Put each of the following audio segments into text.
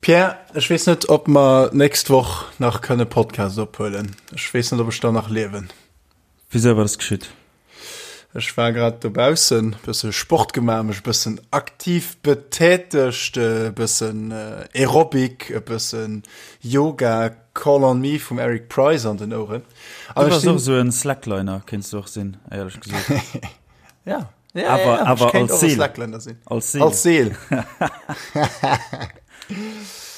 Pierre, ech weess net, ob mer d'nächst Woch nach kënne Podcast ophuelen. Ech weess net, ob ech dann nach liewen. Wisou, wat ass geschitt? Ech war grad dobaussen, bësse Sport gemaach, mech e bëssen aktiv betätegt, e bëssen Aerobic, e bëssen Yoga, Call on Me vum Eric Prydz an den Oueren. An Du bass och esou en Slackliner, kéints du och sinn, éierlech gesot. Ja. Ja, awer, ja, ja. awer als Seel. Als Seel. Als Seel.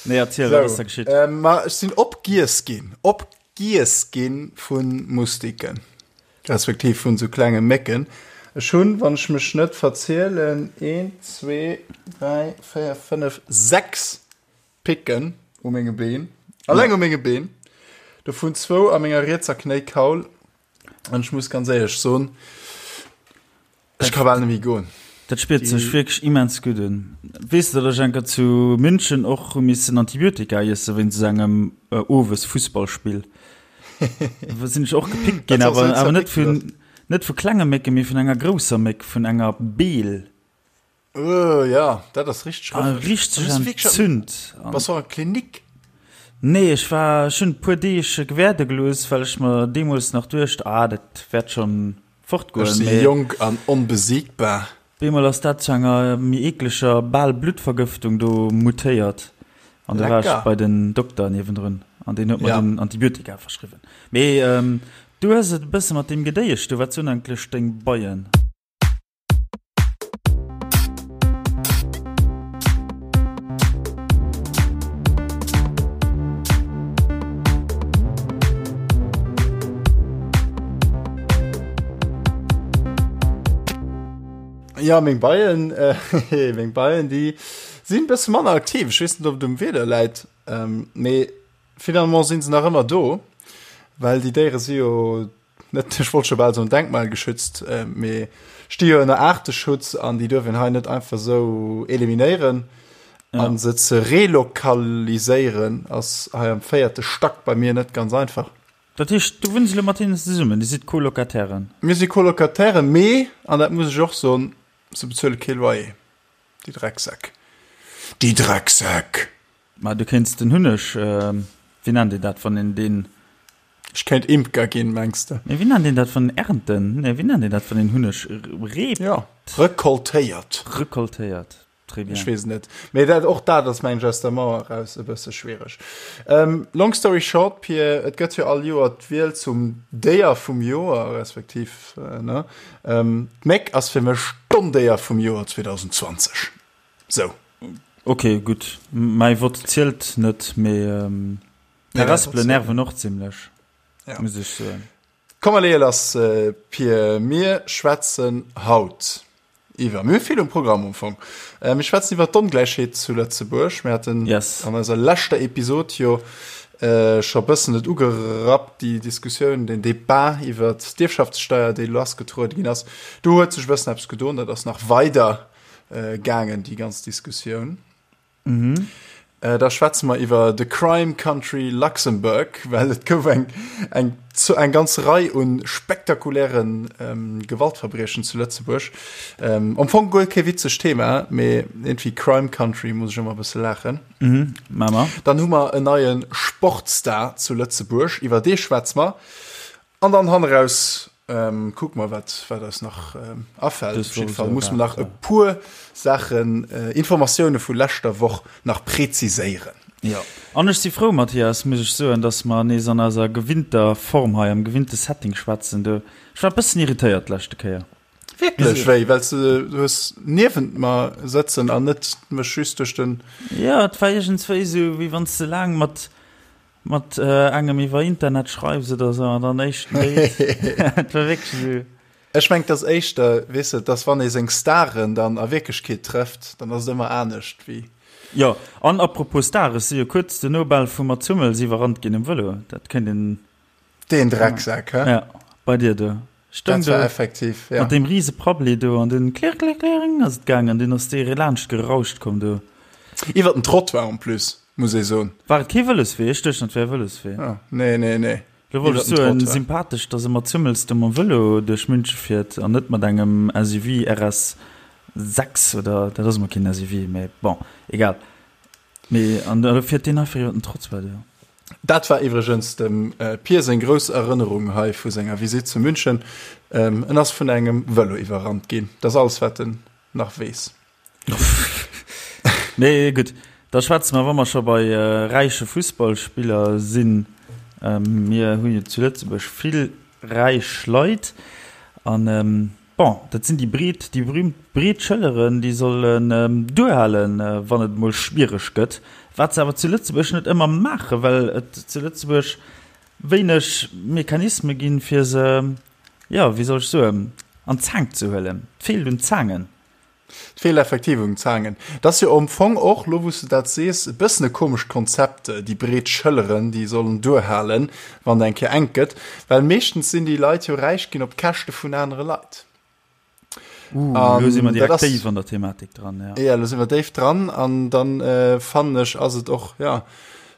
nee, erziel, so, was da geschitt. Ähm, ma, ech sinn opgiess ginn. Opgiess ginn vun Mustiken. Respektiv vun so klenge Mécken. Ech hunn, wann ech mech net verzielen, 1, 2, 3, 4, 5, 6 Picken u menge Been. Alleng ja. u menge Been. Dovun zwou a menger rietser Knéikaul. An ech muss ganz éierlech soen, ech ka bal net méi goen. Dat spiert sech wierklech immens gutt un. Weess de, datt ech eng Kéier zu München och hu missen Antibiotika iesse wéinst esou engem Owes-Fussballspill? Do sinn ech och gepickt ginn, awer awer net vun net vu klenge Mécken, mee vun enger grousser Méck, vun enger Beel. Uh, ja, dat ass richteg ah, rëffeg. Richteg entzünd. Bass du an Klinik? Nee, ech war ech hunn e puer Deeg gewäerde gelooss, well ech mer deemools nach duecht, ah, dat wäert schonn fortgoen. Ech si jonk an onbesiegbar. Bemol ass dat zu enger méi eekleger, bal Bluttvergëftung do mutéiert. An da war ech bei den Dokter niewendrun an deen huet mer dunn Antibiotika verschriwwen. Mee du hues et e bësse mat deem Gedéiesch do. Wat soen eigentlech deng Beien? Ja meng Beien äh, meng Beien déi sinn bësse manner aktiv. Ech weess net ob et um Wieder läit, ähm, mee finalement sinn se nach ëmmer do, well déi Déiere si jo net, ech wollt scho bal soen denkmalgeschützt, mee sti jo ënner Aarteschutz an déi duerf een hei net einfach esou eliminéieren. Ja. An se ze relokaliséieren ass hei am véierte Stack bei mir net ganz einfach. Dat heescht, du wunns elo mat hinnen zesummen, Dir sidd Colocatairen? Mir si Colocatairen, mee, an dat muss ech och soen, se bezuele kee Loyer, déi Drecksäck. Déi Drecksäck! Ma du kéints den Hunneg, wéi nennt een dat, wann een deen. Ech kéint Imker ginn, mengs de? Nee, wéi nennt een dat, wann ernten? Nee, wéi nennt een dat, wann een Hunneg reept? Jo, rekoltéiert. Rekoltéiert, très bien. Ech weess et net. Mee dat, och dat ass, mengen ech, aus der Mauer eraus e bësse schwiereg. Long story short, Pir, et gëtt jo all Joer d'Wiel zum Déier vum Joer, respektiv, ne? D'Méck ass fir mech d'Ondéier vum Joer 2020. Sou. Ok, gutt. Mäi Vott zielt net, mee d'Harespelen nerven och zimlech, muss ech soen. Komm mer leeë lass, Pir. Mir schwätzen haut iwwer, mir hu vill um Programm am Fong. Mir schwätzen iwwer d'Ongläichheet zu Lëtzebuerg. Mir haten an eiser leschter Episod jo scho bëssen et ugerappt, déi Diskussioun, den Debat iwwer d'Ierfschaftssteier, déi lassgetruede ginn ass. Do huet sech e bëssen eppes gedoen, dat ass nach weider gaangen, déi ganz Diskussioun. Mhm. Äh, da schwätze mer iwwer The Crime Country Luxembourg, well et gouf eng, eng, eng ganz Rei un spektakulären ähm, Gewaltverbriechen zu Lëtzebuerg. Ähm, am Fong guer kee witzegt Thema, mee irgendwie Crime Country muss ech ëmmer e bësse laachen. Mhm, Mama. Dann hu mer en neie Sportstar zu Lëtzebuerg, iwwer dee schwätze mer. An dann hanneraus kucke mer, wat, wat eis nach afält. Op jidde Fall muss mer nach e puer Saachen, Informatioune vu leschter Woch nach preziséieren. Jo, an ech si frou, Mathias, muss ech soen, dass mer nees an eiser gewinnter Form hei, am gewinnte Setting schwätzen. Du, ech war e bëssen irritéiert d'leschte Kéier. Wierklech? Wéi? Well s de hues niewent mer sëtzen an net mech just duerch den. Jo, et war iergendswéi esou, wéi wann s de laang mat Mat engem iwwer Internet schreiws oder sou an dann éischten Date. Et war wierklech esou. Ech mengen, et ass éischter, weess de, dass wann ee seng Staren dann a Wierklechkeet trëfft, dann ass et ëmmer anescht wéi. Jo, an apropos Star, ech si jo kuerz duerno bal vum Mats Hummels iwwerrannt ginn um Vëlo. Dat kéint een. Deen Drecksak, hä? Ja, bei dir do. Stoung do effektiv, ja. Mat deem riese Prabbeli do an dunn klirr, klirr, klirr ass et gaangen an dunn ass dee laanscht gerauscht komm do. Iwwer den Trottoir en plus, muss ee soen. War et kee Vëloswee? Ech duecht, et wär e Vëloswee. Ah, nee, nee, nee. Lo wollt ech soen, sympathesch, dass e mat Hummels do mam Vëlo duerch Münche fiert an net mat engem SUV RS 6 oder, dat ass emol keen SUV, mee bon, egal. Mee an da fiert deen einfach iwwer den Trottoir do. Dat war iwwregens dem Pier seng grouss Erënnerung hei vu senger Visitt zu München. En ass vun engem Vëlo iwwerrannt ginn. Dat ass alles, wat en nach weess. Mee gutt, da schwätze mer, wa mer scho bei räiche Fussballspiller sinn. Mir hu jo zu Lëtzebuerg vill räich Leit an Bon, dat sinn déi breet, déi berühmt breet Schëlleren, déi sollen duerhalen, wann et emol schwiereg gëtt. Wat se awer zu Lëtzebuerg net ëmmer maachen, well et zu Lëtzebuerg wéineg Mechanisme ginn, fir se, jo, wéi soll ech soen, an d'Zaang ze huelen. Et feelt un Zaangen. Et feelt effektiv un Zaangen. Et ass jo am Fong och, lo wou s de dat sees, e bëssen e komescht Konzept, déi breet Schëlleren, déi sollen duerhalen, wann et eng Kéier enk gëtt. Well meeschtens sinn déi Leit jo räich ginn op Käschte vun anere Leit. Uh, lo si mer direkt déif an der Thematik dran, ja. Ja, lo si mer déif dran an dann fannen ech, ass et och, ja,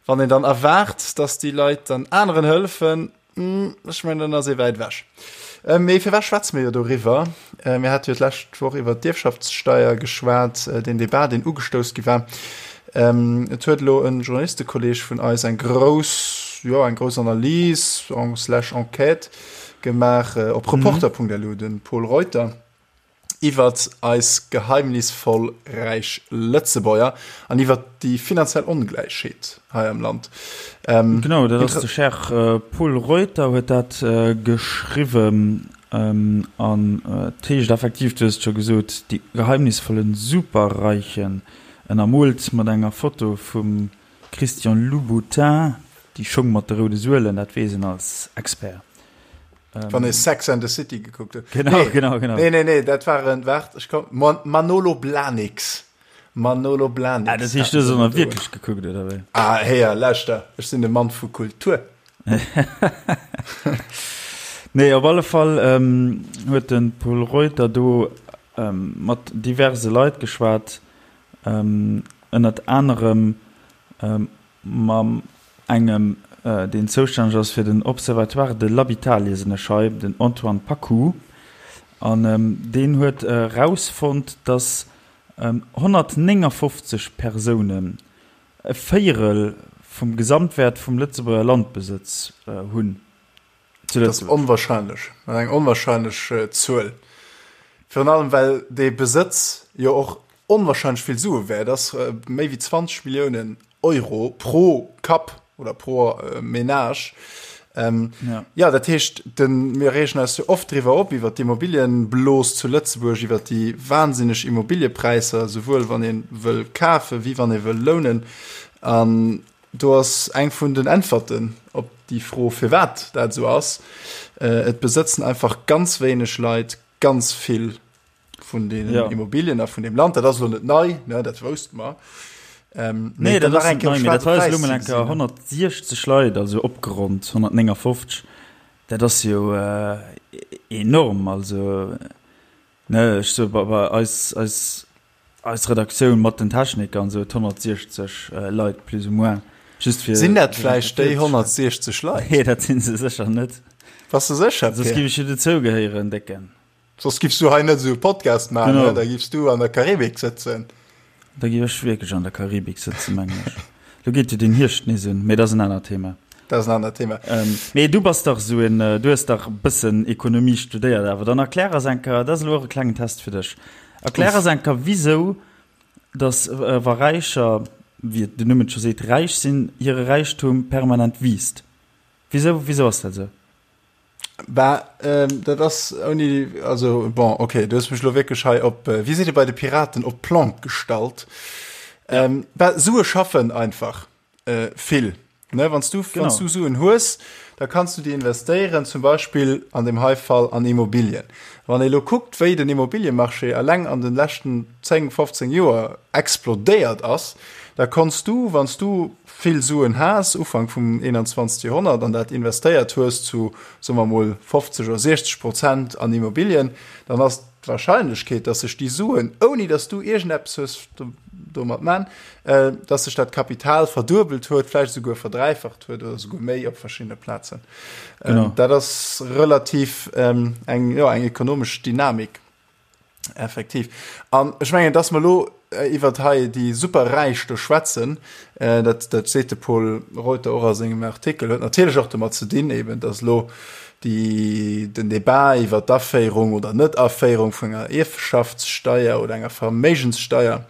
wann een dann erwaart, dass déi Leit dann aneren hëllefen, Ech mengen, dann ass ee wäit ewech. Mee firwat schwätze mir jo doriwwer? Mir hate jo d'lescht Woch iwwert d'Ierfschaftssteier geschwat, deen Debat, deen ugestouss gi war. Et huet elo e Journalistekolleeg vun eis eng grouss, jo, eng grouss Analys slash Enquête gemaach op Reporter.lu, de Pol Reuter. Iwwert eis geheimnisvoll räich Lëtzebuerger an iwwert déi finanziell Ongläichheet hei am Land. Genau, dat ass de Cher Pol Reuter huet dat geschriwwen an et heescht effektiv, du hues et scho gesot, die geheimnisvollen Superreichen, ënnermoolt mat enger Foto vum Christian Louboutin, déi Schong mat de roude Suelen, dat weess een als Expert. Wann ee Sex and the City gekuckt huet. Genau, nee, genau, genau. Nee, nee, nee, dat waren, waart, ech komm, Manolo Blahniks. Manolo Blahniks. Ah, dat heescht, du hues och wierklech gekuckt, oder wéi? Ah, héier, lauschter, ech sinn de Mann vu Kultur. Nee, op alle Fall ähm, huet de Pol Reuter do ähm, mat diverse Leit geschwat, ähm, ënnert anerem ähm, Mam engem, deen zoustänneg ass fir den Observatoire de l'habitat, liesen ech hei, den Antoine Paccoud. An deen huet erausfonnt, datt 159 Persounen e Véierel vum Gesamtwäert vum Lëtzebuerger Landbesëtz hunn. Zu Dat ass onwahrscheinlech, dat ass eng onwahrscheinlech Zuel. Virun allem well dee Besëtz jo och onwahrscheinlech vill Sue wäert ass, méi wéi 20 Milliounen Euro pro Kapp oder pro Menage. Ja. Ja, dat heescht, den, mir reegen eis jo oft driwwer op, iwwer d'Immobilienblos zu Lëtzebuerg, iwwer déi wahnsinneg Immobiliepräisser, souwuel wann ee wëll kafen, wéi wann ee wëll lounen. An Do ass eng vun den Äntwerten op déi Fro, firwat dat esou ass, Et besëtzen einfach ganz wéineg Leit ganz vill vun deenen ja. Immobilien a vun deem Land. Dat ass elo net nei, ne, dat wousste mer. Ähm, nee, dat ass net nei, mee dat war elo mol eng Kéier 160 Leit, also opgeronnt 159. Dat ass jo äh, enorm, also ne, ech so bei, bei eis, eis Eis Redaktioun mat den Techniker an esou huet 160 Leit plus ou moins. Just fir Sinn dat vläicht déi 160 Leit? Nee, dat sinn se sécher net. Bass de sécher, Soss Pierre? giff ech jo dozou gehéieren, Décken. Soss giffs du hei net esou e Podcast maachen, Genau. ne? Da giffs du an der Karibik sëtzen. Da giff ech wierklech an der Karibik sëtzen, mengen ech. Lo geet jo den Hierscht nees un, mee dat ass en anert Thema. Dat ass en anert Thema. Ähm, mee du bass dach esou en, du hues dach e bëssen Ekonomie studéiert awer. Dann erklär eis eng Kéier, dat ass elo och e klengen Test fir dech. Erklär eis eng Kéier, wisou dass wa Räicher, wéi den Numm et scho seet, räich sinn, hire Räichtum permanent wiisst. Wisou, wisou ass dat esou? Bah, dat ass ouni, also bon, okay, du hues mech elo wierklech hei op, wéi seet ee bei de Piraten, op d'Plank gestallt. Bah, Sue schaffen einfach. Vill, ne? Wann s du, wann s du Suen hues, da kanns du déi investéieren, zum Beispill an deem hei Fall an Immobilien. Wann ee lo kuckt, wéi den Immobiliemarché eleng an de leschten 10, 15 Joer explodéiert ass, da konns du, wann s du vill Suen has, Ufank vum 21. Joerhonnert, an dat investéiert hues zu, soe mer mol, 50 oder 60 Prozent an Immobilien, dann ass d'Wahrscheinlechkeet, dass sech déi Suen, ouni dass du iergendeppes hues domat man, dass sech dat Kapital verduebelt huet, vläicht esouguer verdräifacht huet oder esouguer méi op verschiddene Plazen. Genau. Dat ass relativ eng, jo, eng ekonomesch Dynamik, effektiv. An ech mengen, dass mer elo. iwwert hei déi Superräich do schwätzen, dat, dat seet de Pol Reuter och a sengem Artikel, huet natierlech och domat ze dinn, eben datt elo déi, den Debat iwwert d'Aféierung oder Net-Aféierung vun enger Ierfschaftssteier oder enger Verméigenssteier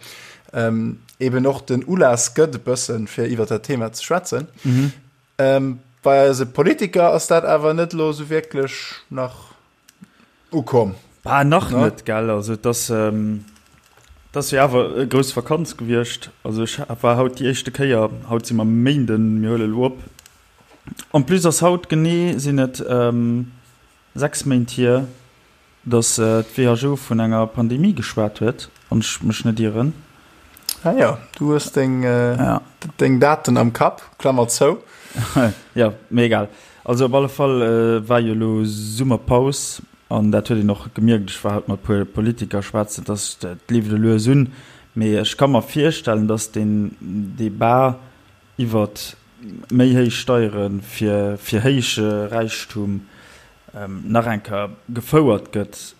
eben och den Ulaass gëtt e bëssen, fir iwwert dat Thema ze schwätzen. Bei eise Politiker ass dat awer net elo esou wierklech nach ukomm. Bah, nach ne? net, gell? Also, et ass, ähm, et ass jo awer e grouss Vakanz gewiescht. Also, ech war haut déi éischte Kéier, haut si mer Méinden, mir huele lo op. En plus ass haut genee, sinn et ähm, 6 Méint hier, datt d'WHO vun enger Pandemie geschwat huet, wann ech mech net ieren. Ah jo, du hues deng, ja. deng Daten am Kapp, Klammer zou. Ja, mee egal. Also op alle Fall war jo elo Summerpaus an dat huet een och gemierkt. Ech war haut mat puer Politiker schwätzen, dass et leeft elo lues un. Mee ech ka mer virstellen, dass deen Debat iwwert méi héich Steiere fir fir héije Räichtum nach eng Kéier gefouert gëtt.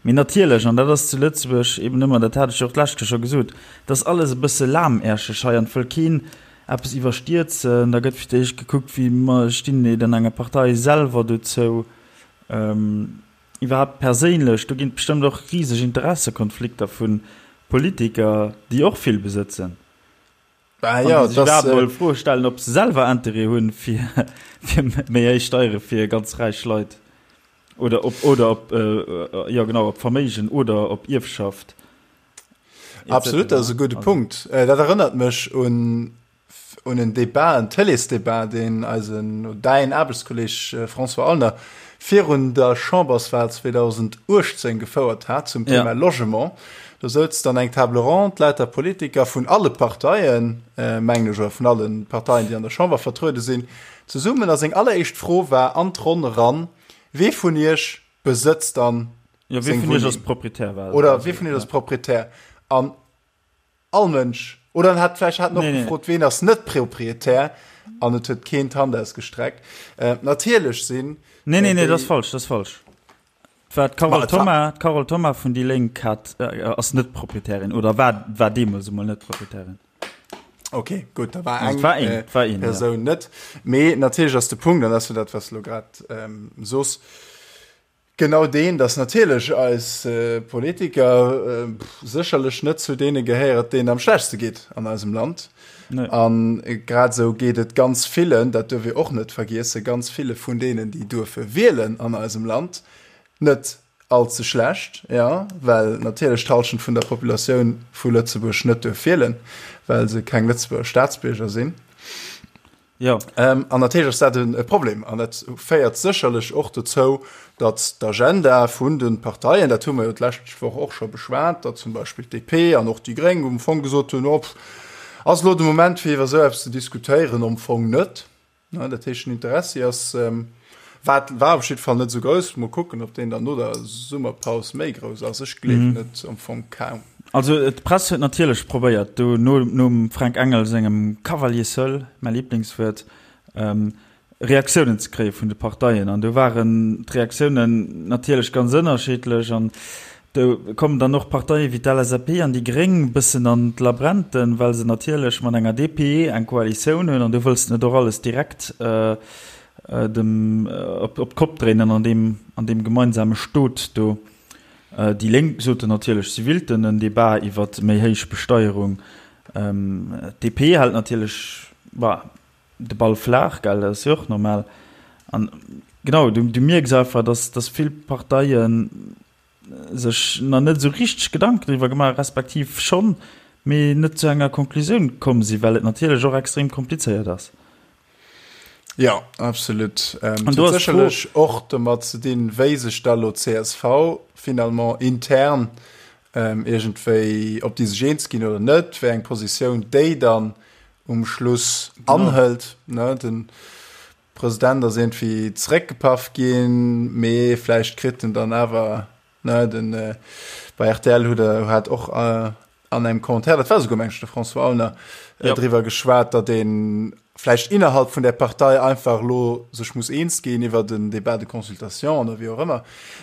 Mee natierlech, an dat ass zu Lëtzebuerg eben ëmmer, dat hat ech jo och d'lescht Kéier scho gesot, et ass alles e bësse lahmäerscheg hei an et wëll keen eppes iwwerstierzen. Da gëtt fir d'éischt gekuckt, wéi stinn déi dann enger Partei selwer dozou, iwwerhaapt perséinlech. Do ginn et bestëmmt och riseg Interessekonflikter vu Politiker, déi och vill besëtzen. Bah, ja, an déi sech iwwerhaapt mol Froe stellen, ob se selwer Interêt hunn, fir méi héich Steiere fir ganz räich Leit. Oder op, oder op, jo genau, op Verméigen oder op Ierfschaft. Absolut, dat ass e gudde Punkt. Dat erënnert mech un, un en Debat, en Télésdebat, deen eisen, däin Aarbechtskolleg François Aulner virun der Chamberswahl 2018 gefouert hat zum Thema Logement. Do souz dann eng Table ronde, lauter Politiker vun alle Parteien, mengen ech, oder vun alle Parteien, déi an der Chamber vertruede sinn, zesummen. A seng alleréischt Fro war an d'Ronn eran, Wee vun Iech besëtzt dann ja, seng Wunneng? Ass Proprietär, war oder wee vun Iech ass Proprietär? An all Mënsch, oder en hat vläicht hat en och nee, gefrot, nee. ween ass net Proprietär? An et huet keen d'Hand ausgestreckt. Äh, natierlech sinn. Nee, nee, nee, dat ass falsch, dat ass falsch. War d'Carole Thoma, d'Carole Thoma vun déi Lénk hat, äh, ass net Proprietärin oder war, war deemools emol net Proprietärin. Okay, gut, da war eng, war een, äh, war een, Persoun ja. net. Mee natierlech ass de Punkt, an dat dat was lo grad ähm, sos, genau deen, dass natierlech eis äh, Politiker äh, sécherlech net zu deene gehéiert, deenen am schlechtste geet an eisem Land. Nee. An äh, grad sou geet et ganz villen, dat duerf ee och net vergiessen, ganz ville vun deenen, déi duerfe wielen an eisem Land, net All ze schlecht, jo, well natierlech d'Hallschent vun der Populatioun vu Lëtzebuerg net duerf wielen, well se keng Lëtzebuerger Staatsbierger sinn. Jo. An natierlech ass dat e Problem an dat féiert sécherlech och dozou, datt d'Agenda vun de Parteien, dat hu mer jo d'lescht Woch och scho beschwat, datt zum Beispill d'DP an och déi Gréng um Fong gesot hunn, oh, ass elo de Moment fir iwwer esou eppes ze diskutéieren? Am Fong net. Dat heescht, den Interessi ass, war, war op jidde Fall net esou grouss. Mol kucken, ob deen dann no der Summerpaus méi grouss ass. Ech gleewen et am Fong kaum. Also d'Press huet natierlech probéiert, do no, nom Fränk Engel sengem Cavalier seul, mäi Liblingswuert, Reaktiounen ze kréie vun de Parteien. An do waren d'Reaktiounen natierlech ganz ënnerschiddlech. An Do kommen dann och Parteie wéi d'LSAP an déi Gréng bëssen an d'Labrenten, well se natierlech mat enger DP eng Koalitioun hunn an do wëlls de net och alles direkt dem op d'Kopp dréinen an deem an deem gemeinsame Stot do. Déi Lénk soten natierlech, si willten en Debat iwwert méi héich Besteierung. D'DP hält natierlech, bah, de Ball flaach, gell, dat ass jo och normal. An genau, du mierks einfach, datt datt vill Parteien, sech nach net esou richteg Gedanken driwwer gemaach, respektiv schonn, mee net zu enger Konklusioun komm sinn, well et natierlech och extrem komplizéiert ass. Jo, absolut. Ähm, An do ass sécherlech och domat ze dinn, wéi sech da lo csv finalement intern ähm, iergendwéi, ob déi sech eens ginn oder net, wéi eng Positioun déi dann um Schluss anhëlt. Ne, den President ass iergendwéi zeréckgepaff ginn, mee vläicht kritt en dann awer, ne, den bei rtl huet e hat och an engem Commentaire, dat war esouguer meng ech de François Aulner, ja. driwwer geschwat, datt ee vläicht innerhalb vun där Partei einfach elo sech muss eens ginn iwwer den Débat de consultation oder wéi och ëmmer,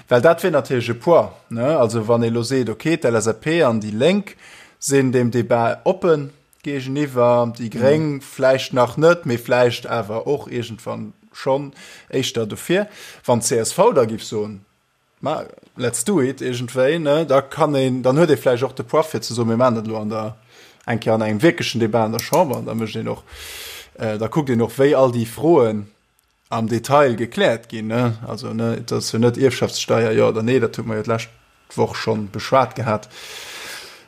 well dat wier natierlech e Poids, ne, also wann ee elo seet, okay, d'LSAP an déi Lénk. sinn deem Debat oppen géigeniwwer, déi Gréng vläicht nach net, mee vläicht awer och iergendwann schonn éischter dofir. Wann d'CSV da géif soen, Ma let's do it iergendwéi, ne, da kann een, dann huet ee vläicht och de Poids fir ze soen, mir maachen dat elo an der, eng Kéier an engem wierklechen Debat an der Chamber an da mécht een och, da kuckt een och, wéi all déi Froen am Detail gekläert ginn, ne. Also, ne, et ass jo net Ierfschaftssteier jo oder nee, dat hu mer jo d'lescht Woch schonn beschwat gehat,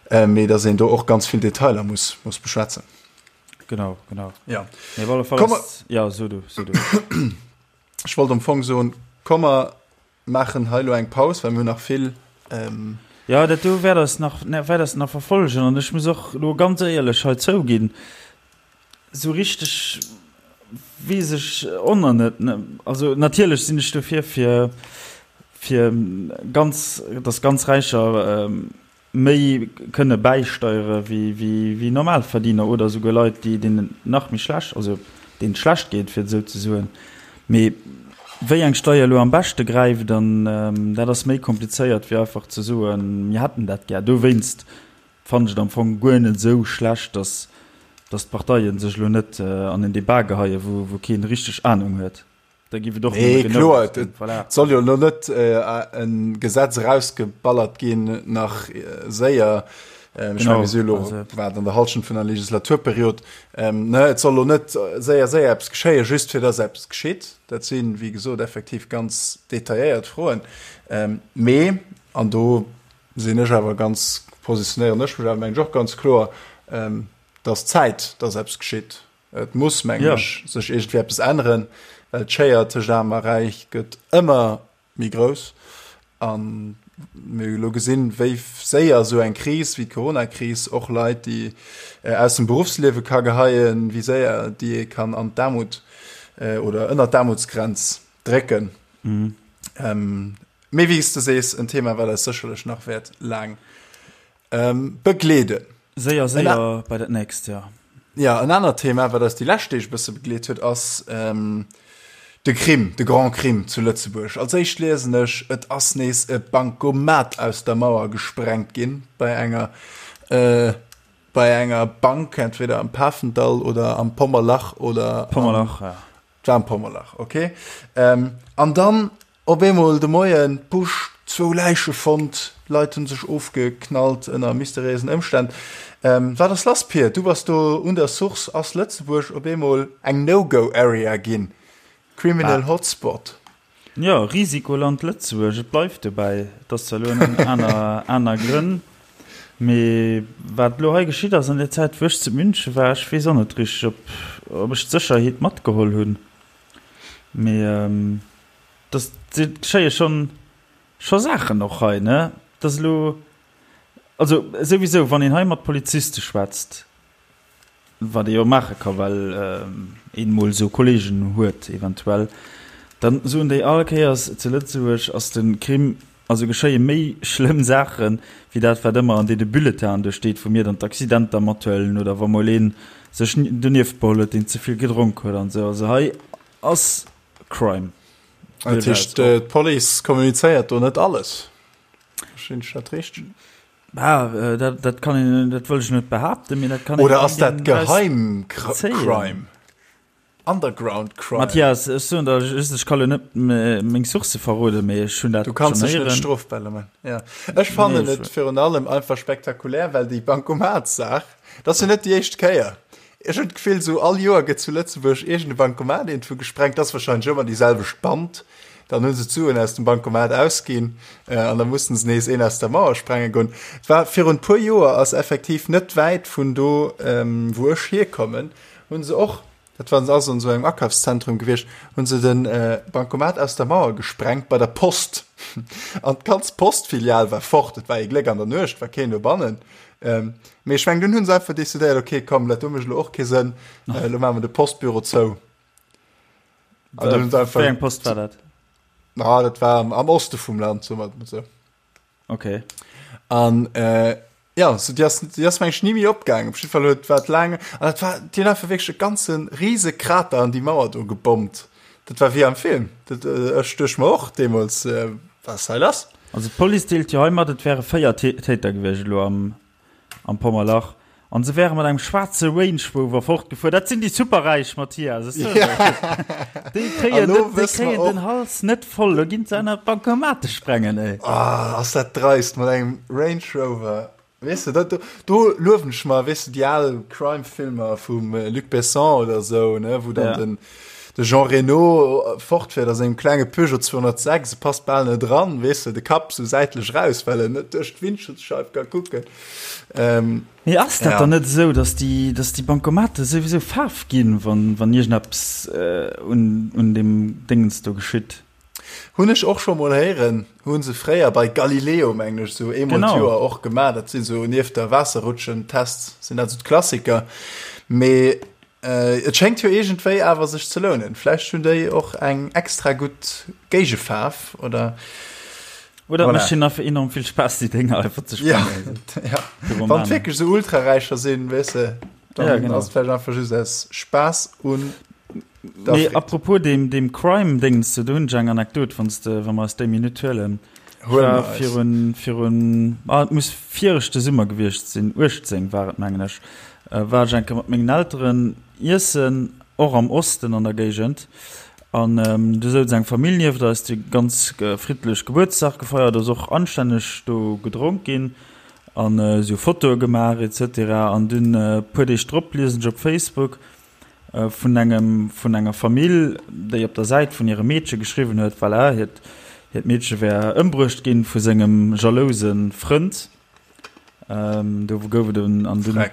mee datt een do och ganz vill Detailer muss, muss beschwätzen. Genau, genau. Ja. Mee op alle Fall ass, ja, so du, so du. Ech wollt am Fong soen, komm mer maachen hei elo eng Paus, well mir hunn nach vill. Jo, dat do wäert eis nach, wäert eis nach verfollegen. An ech muss och elo ganz éierlech hei zouginn, esou richteg weess ech och nach net. Also natierlech sinn ech dofir, fir, fir ganz, datt ganz Räicher méi kënne bäisteiere wéi Normalverdiener oder esouguer Leit, déi deenen et nach méi schlecht, also deenen et schlecht geet, fir et esou ze soen. Mee wéi eng Steier elo am beschte gräift, an dat ass méi komplizéiert wéi einfach ze soen, mir hätten dat gär. Dowéinst fannen ech et am Fong guer net esou schlecht, datt datt d'Parteie sech elo net an en Debat geheien, wou keen richteg Anung huet. Da giff et och Nee, kloer, et voilà. soll jo elo net äh, en Gesetz erausgeballert ginn nach äh, séier. Ähm, ech meng, mir si elo wat an der Halschent vun der Legislaturperiod. Ähm, ne, et soll elo net séier séier eppes geschéien, just fir dass eppes geschitt. Dat sinn, wéi gesot, effektiv ganz detailléiert Froen. Ähm, mee, an do sinn ech awer ganz, positionéieren ech mech awer, meng ech, och ganz kloer, ähm, dass Zäit, dass eppes geschitt. Et muss, mengen ech, sech iergendwéi eppes änneren, well d'Schéier tëscht Aarm a Räich gëtt ëmmer méi grouss. A mir hu elo gesinn, wéi séier esou eng Kris wéi d'Coronakris och Leit, déi aus dem Beruffsliewe ka geheien, wéi séier déi ee kann an d'Aarmut oder ënnert d'Aarmutsgrenz drécken. Mee wéi s de sees, en Thema, wat eis sécherlech nach wäert laang Begleeden. Séier, séier bei dat nächst, jo. Ja, en anert Thema, wat eis déi lescht Deeg e bësse begleet huet, ass de Crime, de Grand Crime zu Lëtzebuerg. Als éischt liesen ech, et ass nees e Bankomat aus der Mauer gesprengt ginn bei enger, bei enger Bank, entweder am Pafendall oder am Pommerlach oder. Pommerlach, ja. Et war am Pommerlach, okay. An dann Op eemol de Moien, Busch, zwou Läiche fonnt, Leit hunn sech ofgeknallt ënner mysteriéisen Ëmstänn. Wat ass lass, Pir? Du bass do un der Source. Ass Lëtzebuerg op eemol eng No-Go-Area ginn? Criminal Hotspot? Jo, Risikoland Lëtzebuerg, et bleift dobäi. Et ass zwar elo ënner aner, aner Grënn, mee wat elo hei geschitt ass an der Zäit, wou ech zu München war, ech weess och net richteg, ob, ob ech d'Sécherheet matgeholl hunn. Mee dass et geschéie schonn scho Saachen och hei, ne? Dass elo, also souwisou, wann een hei mat Poliziste schwätzt, wat ee jo maache ka well een emol esou Kollegen huet eventuell, dann soen déi all Kéiers, zu Lëtzebuerg ass de Crime, also geschéie méi schlëmm Saache wéi dat wat ëmmer an deene Bulletinen do steet, wou mir dann d'Accidenter mathuelen oder wa mol ee sech donieft beholl huet, deen ze vill gedronk huet an esou. Also hei ass Crime. Dat heescht, d'Police kommunizéiert do net alles? Verstinn ech dat richteg? Ah, dat, dat kann een, dat wëll ech net behaapten, mee dat kann een. Oder ass dat geheim Crime? Underground Crime? Mathias, ech soen der just, ech ka lo net meng Sourcë verroden, mee ech hunn dat Du kanns dech net strofbar man. Ja. Ech fannen nee, et virun allem einfach spektakulär, well déi Bankomatssaach, dat ass jo net déi éischt Kéier. Ech hunn d'Gefill, sou all Joer gëtt zu Lëtzebuerg iergend e Bankomat iergendwou gesprengt. Dat ass wahrscheinlech ëmmer déi selwecht Band. Dann hu se d'Suen aus dem Bankomat ausginn an da mussen se nees een aus der Mauer sprenge goen. Et war virun puer Joer, ass effektiv net wäit vun do, wou ech hierkommen, hu se och, dat war ass an esou engem Akafszentrum gewiescht, hu se de Bankomat aus der Mauer gesprengt bei der Post. An d'ganz Postfilial war fort. Et war ee Gléck, an der Nuecht war keen dobannen. Ähm, mee ech meng, dunn hunn se einfach decidéiert, okay, komm, dat do mécht elo och kee Sënn, äh, lo maache mer de Postbüro zou. An dunn hunn se einfach. Wéi eng Post war dat? Ah, dat war am, am Oste vum Land, soe mer et mol sou. Okay. An äh, ja, so, déi ass, déi ass meng ech ni méi opgaangen. Op jidde Fall huet, war et laang, an dat war, déi hunn einfach wierklech e ganze rise Krater an déi Mauer do gebommt. Dat war wéi am Film. Dat, äh, ech duecht mer och deemools, äh, wat ass hei lass? Also d'Police deelt jo hei mat, et wäre 4 Täter gewiescht elo am. am Pommerlach. An se wäre mat engem schwaarze Range Rover fortgefuer. Dat sinn déi Superräich, Mathias. Ech soen der et. Déi kréien, An lo déi wësse mer kréien och- den Hals net voll. Lo ginn se aner Bankomate sprengen, ey. Ah, ass dat dreist mat engem Range Rover. Weess de, dat do, do luewen ech mer, weess de, déi al Crime-Filmer vum Luc Besson oder esou, ne, wou dann Ja. den, de Jean Reno fortfäert a sengem klenge Peugeot 206, e passt bal net dran, weess de, de Kapp sou säitlech raus, well en net duerch d'Windschutzscheif ka kucken. Ähm, Mee ass dat ja. dann net esou, dass déi, dass déi Bankomate souwisou Faarf ginn, wann, wann iergendeppes äh, un, un deem Déngens do geschitt? Hunn ech och scho mol héieren, hu se fréier bei Galileo, mengen ech, sou eemol Genau. d'Joer och gemaach. Dat sinn sou nieft der Waasserrutschen-Tests sinn dat sou d'Klassiker. Mee äh, et schéngt jo iergendwéi awer sech ze lounen. Vläicht hunn déi och eng extra gutt Géigefaarf oder Oder Voilà. mécht hinnen einfach enorm vill Spaass, déi Dénger einfach ze Ja, sprengen. ja. Wann Pyromanen. et wierklech sou Ultraräicher sinn, weess de, dann Ja, genau. ass et vläicht einfach just aus Spaass un der Mee Freed. apropos deem, deem Crime-Déngens do, do hunn ech eng Anekdot, wann s de, wa mer eis déi Minutt huelen. Ech Huele war mer eis. virun, virun, ah, et muss viregte Summer gewiescht sinn, 18 war et, mengen ech, war ech eng Kéier mat mengen Elteren iessen, och am Osten an der Géigend. An do souz eng Famill nieft eis, déi ganz friddlech Gebuertsdag gefeiert, ass och anstänneg do gedronk ginn an esou Fotoe gemaach et cetera. An dunn e puer Deeg drop liesen ech op Facebook vun engem, vun enger Famill, déi op der Säit vun hirem Meedche geschriwwen huet, voilà, hiert, hiert Meedche wär ëmbruecht ginn vu sengem jalouse Frënd. Do gouf et en, an dunn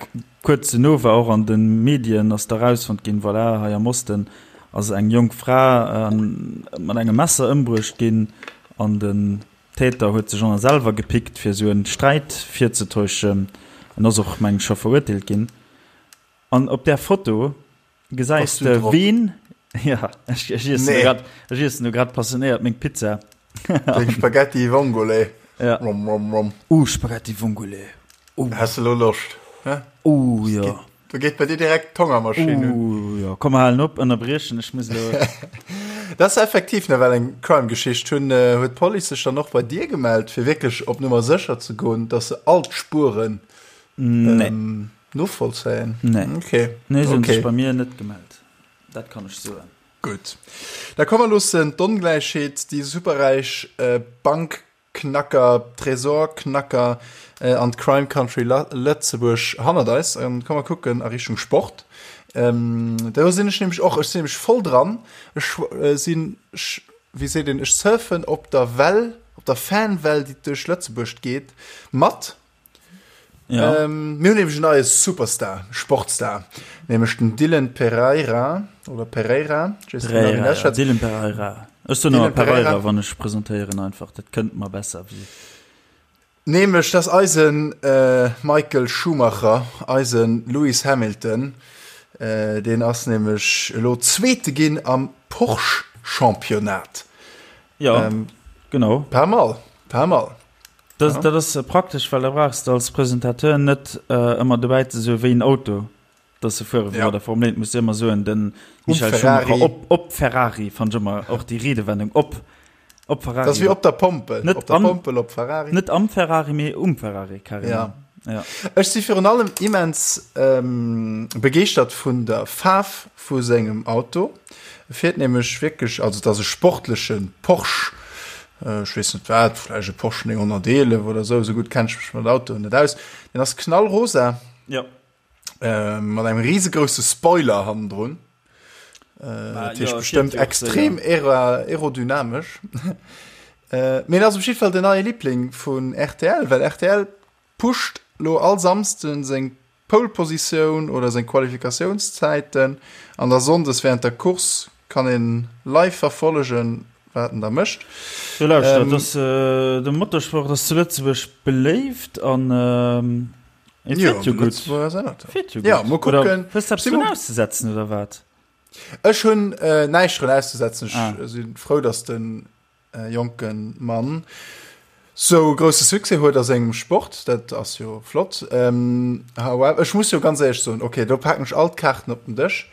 kuerz duerno war och an de Medien ass da rausfonnt ginn, voilà, hei am Osten ass eng jonk Fra mat engem Messer ëmbruecht ginn an den Täter huet sech ënner selwer gepickt, fir esou en Sträit virzetäuschen. En ass och, meng ech, scho verurteelt ginn. An op där Foto gesäis de ween, ja, ech iessen nee. grad, ech iessen do grad passionéiert meng Pizza. Deng Spaghetti Vongole. Ja. Rom, rom, rom. Uh, Spaghetti Vongole. Uh. Hast du lo Loscht? Hä? Uh, ja. Geht, do geet bei dir direkt d'Hongermaschinn un. Uh, ja. Komm, mer halen op, ënnerbriechen, ech muss lo. Dat ass effektiv nawell eng Crime-Geschicht. Hunn, äh, huet d'Police sech dann och bei dir gemellt, fir wierklech op Nummer sécher ze goen, dass se all d'Spueren nee. ähm, Novollzéien? Nee. Okay. Nee, se hunn okay. sech bei mir net gemellt. Dat kann ech soen. Gutt. Da komm mer loossen d'Ongläichheet, déi superräich äh, Bankknacker, Tresorknacker äh, an d'Crime Country Lëtzebuerg hannert eis an komm mer kucken a Richtung Sport. Ähm, do sinn ech nämlech och, ech sinn nämlech voll dran. Ech äh, sinn, wéi seet een, ech surfen op der Well, op der Fanwell, déi duerch Lëtzebuerg geet, mat. Ja. Ähm, mir hunn nämlech en neie Superstar, Sportstar, nämlech den Dylan Pereira oder Pereira. Ich weiß Pereira, nicht, ja. Dylan Pereira. Ech soen Dylan ëmmer Pereira, Pereira, wann ech presentéieren einfach. Dat kënnt mer besser wéi. Nämlech dass eisen äh, Michael Schumacher, eisen Lewis Hamilton, äh, deen ass nämlech elo Zweete ginn am Porsche Championnat. Ja, ähm, genau. Pas mal, pas mal. Dat, dat ass praktesch, well da brauchs de als Presentateur net ëmmer dobäi ze soen, wéi en Auto dass se fuere wéi bei der Formel 1. Muss de ëmmer soen, den Michael Schumacher op, op Ferrari, fannt ech ëmmer och déi Riedewendung, op, op Ferrari. Dat ass wéi op der Pompel, net op der am, Pompel op Ferrari. Net am Ferrari, mee um Ferrari, carrément. Ja. Ja. Ech si virun allem immens ähm, begeeschtert vun der Faarf vu sengem Auto. E fiert nämlech wierklech, also et ass e sportleche Porsche, ech weess net wat, vläicht e Porsche 911 oder esou, esou gutt kenn ech mech mat Autoen net aus. Deen ass knallrosa. Ja. Äh, mat engem risegrouse Spoiler hannendrun. Äh, dat heescht bestëmmt extrem aerodynamesch. Äh, mee en ass op jidde Fall den neie Liebling vun rtl, well rtl pusht lo all Samsden seng Pole Positioun oder seng Qualifikatiounszäiten an da Sonndes während der Course kann een live verfollegen wat en da mécht. Jo lauschter, ähm, dass, äh, de Motorsport ass zu Lëtzebuerg beléift an ähm, et jo, fiert jo gutt. Fiert jo gutt. Ja, mol kucken. Hues du eppes drun auszesetzen oder wat? Ech hunn äh, näischt drun auszesetzen. Ech ah. sinn frou, dass den jonke Mann sou grousse Succès huet a sengem Sport, dat ass jo flott. However, ech muss jo ganz éierlech soen, okay, do paken ech all d'Kaarten op den Dësch,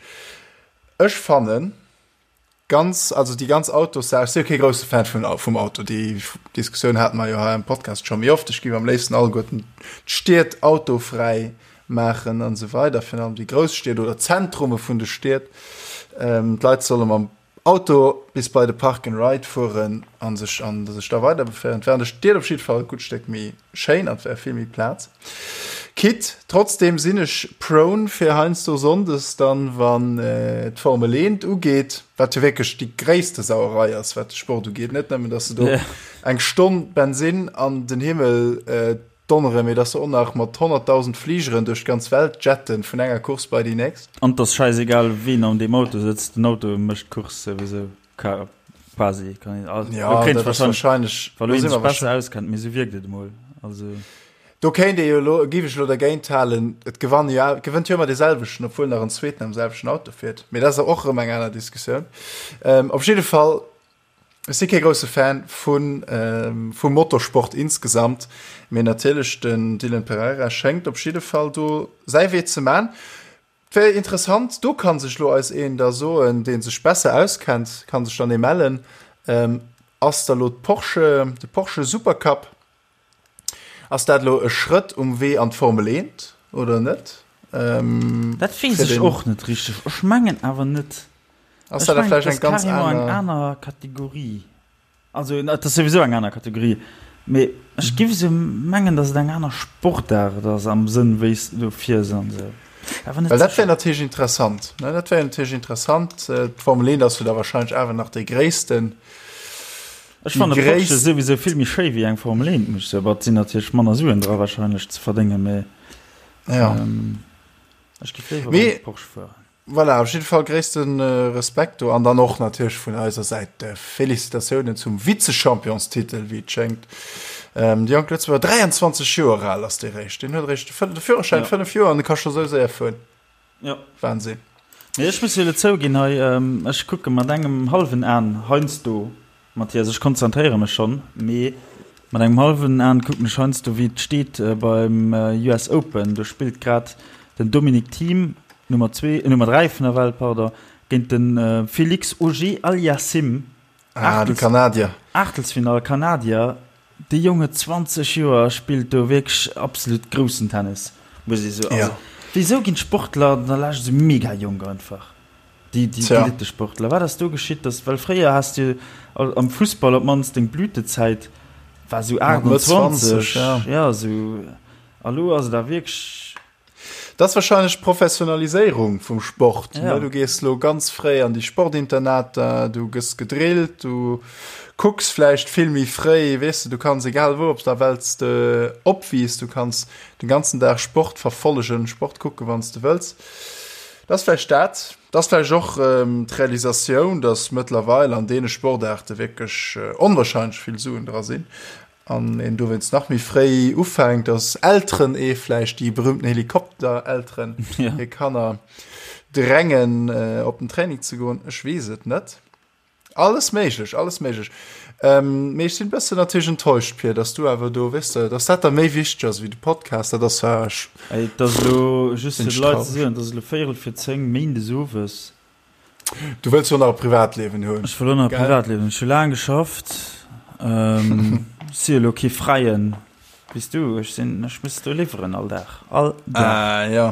ech fannen, Ganz, also déi ganz Autossaach, ech si jo kee grousse Fan vun, vum Auto, déi Diskussioun hate mer jo hei am Podcast scho méi oft. Ech géif am léifsten alleguerten d'Stied autofräi maachen an esou weider, virun allem déi grouss Stied oder d'Zentrume vun de Stied. D'Leit solle mam Auto bis bei de Park and Ride fueren a sech, an sech da weider beféieren. Et wär an de Stied op jidde Fall e gutt Stéck méi schéin an et wär vill méi Plaz. Quitte, trotzdem sinn ech prone fir heiansdo Sonndes dann, wann d'Formel 1 ugeet, wat jo wierklech déi gréisste Sauerei ass, wat de Sport ugeet. Net nëmmen, dass se do eng Stonn Bensinn an den Himmel donneren, mee dass se och nach mat 100.000 Fligeren duerch d'ganz Welt jetten, vun enger Course bei déi nächst. An 't ass schäisegal, ween an deem Auto sëtzt, den Auto mécht d'Course souwisou. Quasi kann een, also, ja, do kéint wahrscheinlech, wa lo een sech besser auskennt, mee sou wierkt et emol. Also. Do kéint ee jo elo, géif ech elo dergéint halen, et gewann jo, et gewënnt jo ëmmer dee selwechten, obwuel nach en zweeten am selwechten Auto fiert. Mee dat ass och erëm eng aner Diskussioun. Ähm, op jidde Fall, ech si kee grousse Fan vun, ähm, vum Motorsport insgesamt, mee natierlech den Dylan Pereira schéngt op jidde Fall do säi Wee ze man. Wär interessant, do kann sech lo eis een da soen, deen sech besser auskennt, kann sech dann ee mellen. Ass da lo d'Porsche, de Porsche Supercup, ass dat lo e Schrëtt um Wee an d'Formel 1 oder net? Dat weess ech och net richteg. Ech mengen awer net. Ass dat da vläicht eng ganz aner. Eng aner Kategorie. Also et ass souwisou eng aner Kategorie, mee ech giff esou mengen, datt et eng aner Sportaart ass am Sënn wéi s de do fiers an esou. Awer net Well dat wär sécher. natierlech interessant, ne? Dat wär natierlech interessant. D'Formel 1 ass jo da wahrscheinlech awer nach dee gréissten, Ech déi fanne Porsche gréisst. souwisou vill méi schéi wéi eng Formel 1, muss ech soen. Bon, et sinn natierlech manner Suen dra wahrscheinlech ze verdéngen, mee Ja. ech giff léiwer Mee beim Porsche fueren. Voilà, op jidde Fall gréisste Respekt do an dann och natierlech vun eiser Säit Félicitatiounen zum Vizechampionstitel, wéi et schéngt. De jonke Lëtzebuerger, 23 Joer al ass dee réischt, deen huet eréischt de Führerschäin, 5 Joer, an e ka scho sou séier fueren. Ja. Wahnsinn. Mee ech muss jo elo zouginn hei, ech kucke mat engem hallwen An heiansdo Mathias, ech konzentréiere mech schonn, mee mat engem hallwen An kucken ech heiansdo wéi et steet beim US Open. Do spillt grad den Dominic Thiem, Nummer zwee, Nummer 3 vun der Welt, pardon, géint de Félix Auger-Aliassime. Ah, de Kanadier. Aachtelsfinall, Kanadier. Dee Jong huet 20 Joer a spillt do wierklech absolut groussen Tennis, muss ee soen. Also, wéisou ginn d'Sportler an der Lescht esou mega jonk einfach? Déi, déi Elittesportler. Wat ass do geschitt, dass, well fréier has du am Fussball op d'mannst deng Blütezäit war esou 28, ja esou, a lo ass et awer wierklech. Dat ass wahrscheinlech d'Professionaliséierung vum Sport. Ja. Du gees lo ganz fréi an déi Sportinternater, du gëss gedrillt, du kucks vläicht vill méi fréi, weess de, du kanns egal wou op der Welt s de opwiiss, du kanns den ganzen Dag Sport verfollegen, Sport kucken, wann s de wëlls. Dat ass vläicht dat. Dat ass vläicht och d'Realisatioun, datt mëttlerweil an deene Sportaarte wierklech onwahrscheinlech vill Suen dra sinn an een dowéinst nach méi fréi ufänkt, datt Elteren ee vläicht, déi berühmten Helikopterelteren, hir Kanner drängen, op den Training ze goen. Ech weess et net. Alles méiglech, alles méiglech. Ähm, mee ech sinn bëssen natierlech enttäuscht, Pir, dass du awer do, weess de, dass dat da méi wichteg ass wéi de Podcast, dat ass zwar. Ey, et ass elo, just fir de Leit ze soen, et ass elo véierel vir 10, méindes owes. Du wëlls jo nach e Privatliewen hunn. Ech wëll och nach e Privatliewen hunn. Ech hu laang geschafft, ähm, si elo kee Fräien, wéi s du. Ech sinn, ech muss do liwweren all Dag, all Dag. Ah, jo.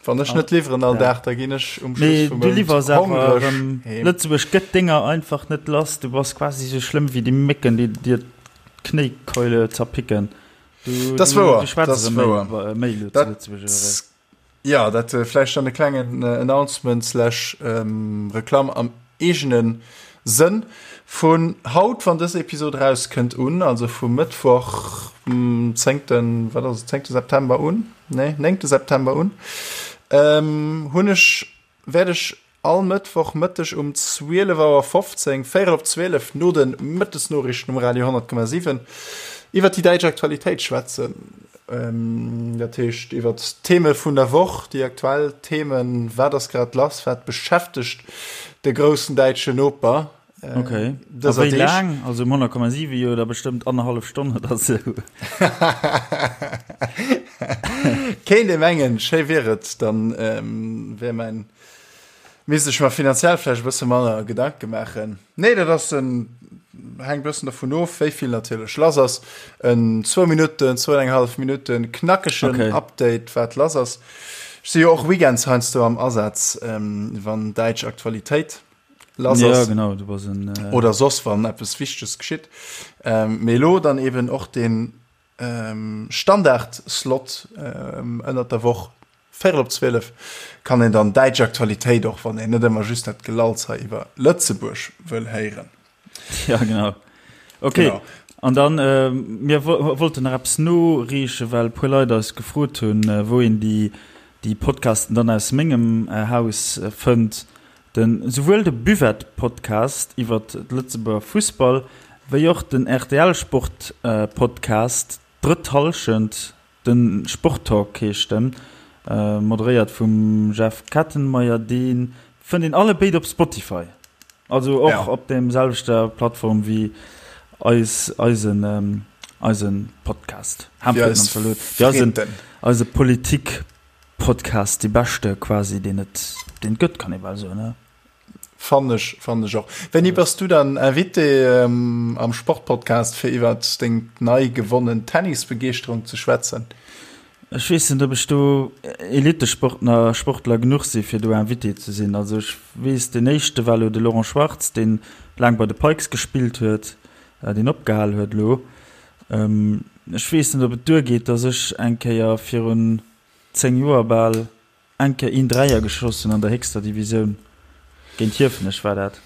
Wann ech net liwweren all Dag, da ginn ech um Schluss vum Mount hongreg heem. Lëtzebuerg gëtt denger einfach net lass. Du bass quasi sou schlëmm wéi déi Mécken, déi dir d'Knéikeule zerpicken. Du, das wouer, du schwätz das wouer. Méi lo zu Lëtzebuerg oder wéi? Ja, dat vläicht dann e klengen Announcement slash Reklamm am eegene Sënn. Vun haut, wann dës Episod erauskënnt, un, also vum Mëttwoch, zéngten, wat ass et, zéngte September un, nee, néngte September un, hunn ech, wäert ech all Mëttwoch Mëtteg um 12 Auer 15, véierel op 12, no de Mëttesnoriichten um Radio 100,7 iwwer déi däitsch Aktualitéit schwätzen. Dat heescht iwwer d'Theme vun der Woch, déi aktuell Themen, wat ass grad lass, wat beschäftegt de groussen däitschen Noper Okay. A wéi laang? Also um 100,7 jo da bestëmmt annerhallef Stonn oder sou. Kéint ee mengen, schéi wier et, dann wär mäin. Misst ech mer finanziell vläicht e bësse manner Gedanke maachen. Nee, dat ass en, hänkt e bëssen dervun of, wéi vill natierlech lass ass. En zwou Minutten, zwou an eng hallef Minutten knackegen Okay. Update, wat lass ass. Ech si jo och weekends heiansdo am Asaz, wann däitsch Aktualitéit lass Ja, ass. genau, du bass en. Oder soss, wann eppes Wichteges geschitt. Mee elo dann eben och deen Standard-Slot ënnert der Woch, véierel op 12, kann een dann däitsch Aktualitéit, och wann een net ëmmer just dat Gelalls hei iwwer Lëtzebuerg wëll héieren. Ja, genau. Okay. Genau. An dann, äh, mir wollten nach eppes noreechen, well e puer Leit eis gefrot hunn, wou een déi, déi Podcasten dann aus mengem Haus fënnt. Den, souwuel de Buvette-Podcast iwwer de Lëtzebuerger Fussball, wéi och den RTL-Sport-Podcast Drëtt Hallschent, de Sporttalk heescht en, moderéiert vum Jeff Kettenmeyer, dee fënnt een alle béid op Spotify, also och Ja. op deem selwechter Plattform wéi eis, eisen, eisen Podcast. Wéi Ham eis Zalot, wéi eisen, Fritten. eise Politik. Podcast, dee beschte quasi deen et deen et gëtt, kann ee bal soen, ne? Fannen ech, fannen ech och. Wéini bass du dann Invité am Sportpodcast fir iwwert deng nei gewonnen Tennisbegeeschterung ze schwätzen? Ech weess net, ob ech do Elitesportner, Sportler genuch si fir do Invité ze sinn. Also ech weess, deen éischte war elo de Laurent Schwartz, deen laang bei de Pikes gespillt huet, deen opgehal huet elo. Ech weess net, ob et duergeet, datt ech eng Kéier virun 10 Joer bal eng Kéier een Dräier geschoss hunn an der héchster Divisioun. Géint Hiefenech war dat.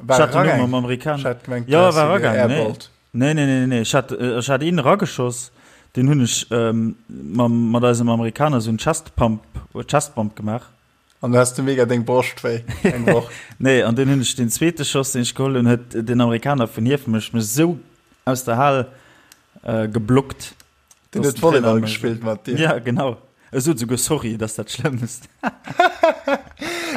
War Ech hat den Numm eragaang? am Amerikan. Ech hat gemengt, du Jo, häss war se eragaang. Nee. geairballt. Nee, nee, nee, nee. Ech hat, ech hat een erageschoss, deen hunn ech mam, mat eisem Amerikaner esou en Chest Pump, Chest Bump gemaach. An du has de mega deng Broscht wéi eng Woch. Nee, an dunn hunn ech deen zweete Schoss, deen ech geholl hunn, huet den Amerikaner vun Hiefenech mech esou aus der Hal geblockt. Den huet Volleyball gespillt mat dir. Ja, genau. E sot souguer Sorry, dat ass dat Schlëmmst.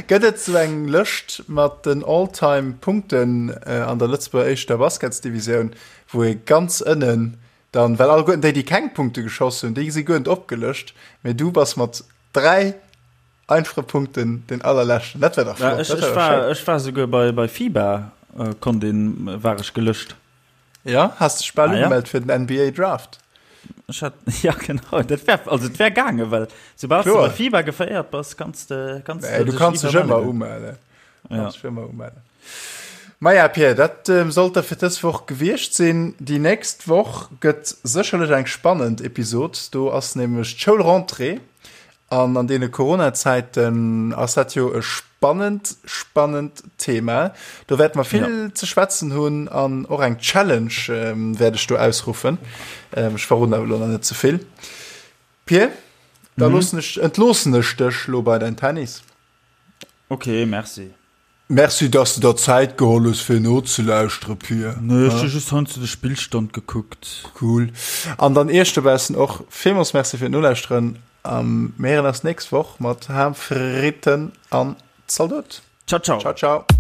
Gëtt et sou eng Lëscht mat den All-Time-Punkten an der Lëtzebuerger éischter Basketsdivisioun, wou ee ganz ënnen dann, well alleguerten déi, déi keng Punkte geschoss hunn, déi si guer net opgelëscht, mee du bass mat 3 einfache Punkten den allerleschten. Dat wär dach Ja, flott. ech, Dat wär ech dach war, schéin. ech war souguer bei, bei FIBA äh, konnt een, war ech gelëscht. Ja, has dech bal Ah, ja. ugemellt fir den NBA Draft. Ech hat, ja genau, dat wär, also et wär gaange, well soubal du Kloer. bei FIBA geféiert bass, kanns de, kanns Nee, du dech kanns dech iwwer ëmmer mellen. umellen. Ja. Kanns dech ëmmer umellen. Maja, Pierre, dat ähm, sollt da fir dës Woch gewiescht sinn. Déi nächst Woch gëtt sécherlech eng spannend Episod. Do ass nämlech d'Schoulrentrée. An an deene Corona-Zäiten ass dat jo e spannend, spannend Thema. Do wäerte mer vill ze schwätzen hunn an och eng Challenge wäert ech do ausruffen. Ech verroden awer elo nach net ze vill. Pir, da loossen ech, entloossen ech dech elo bei däin Tennis. Ok, merci. Merci, dass de der Zäit geholl hues fir nozelauschteren, Pir. Nee, ech hu just heiansdo de Spillstand gekuckt. Cool. An dann iech dobaussen och villmools Merci fir d'Nolauschteren. A mir héieren eis nächst Woch mat Ham, Fritten an Zaldot. Ciao, ciao. Ciao, ciao.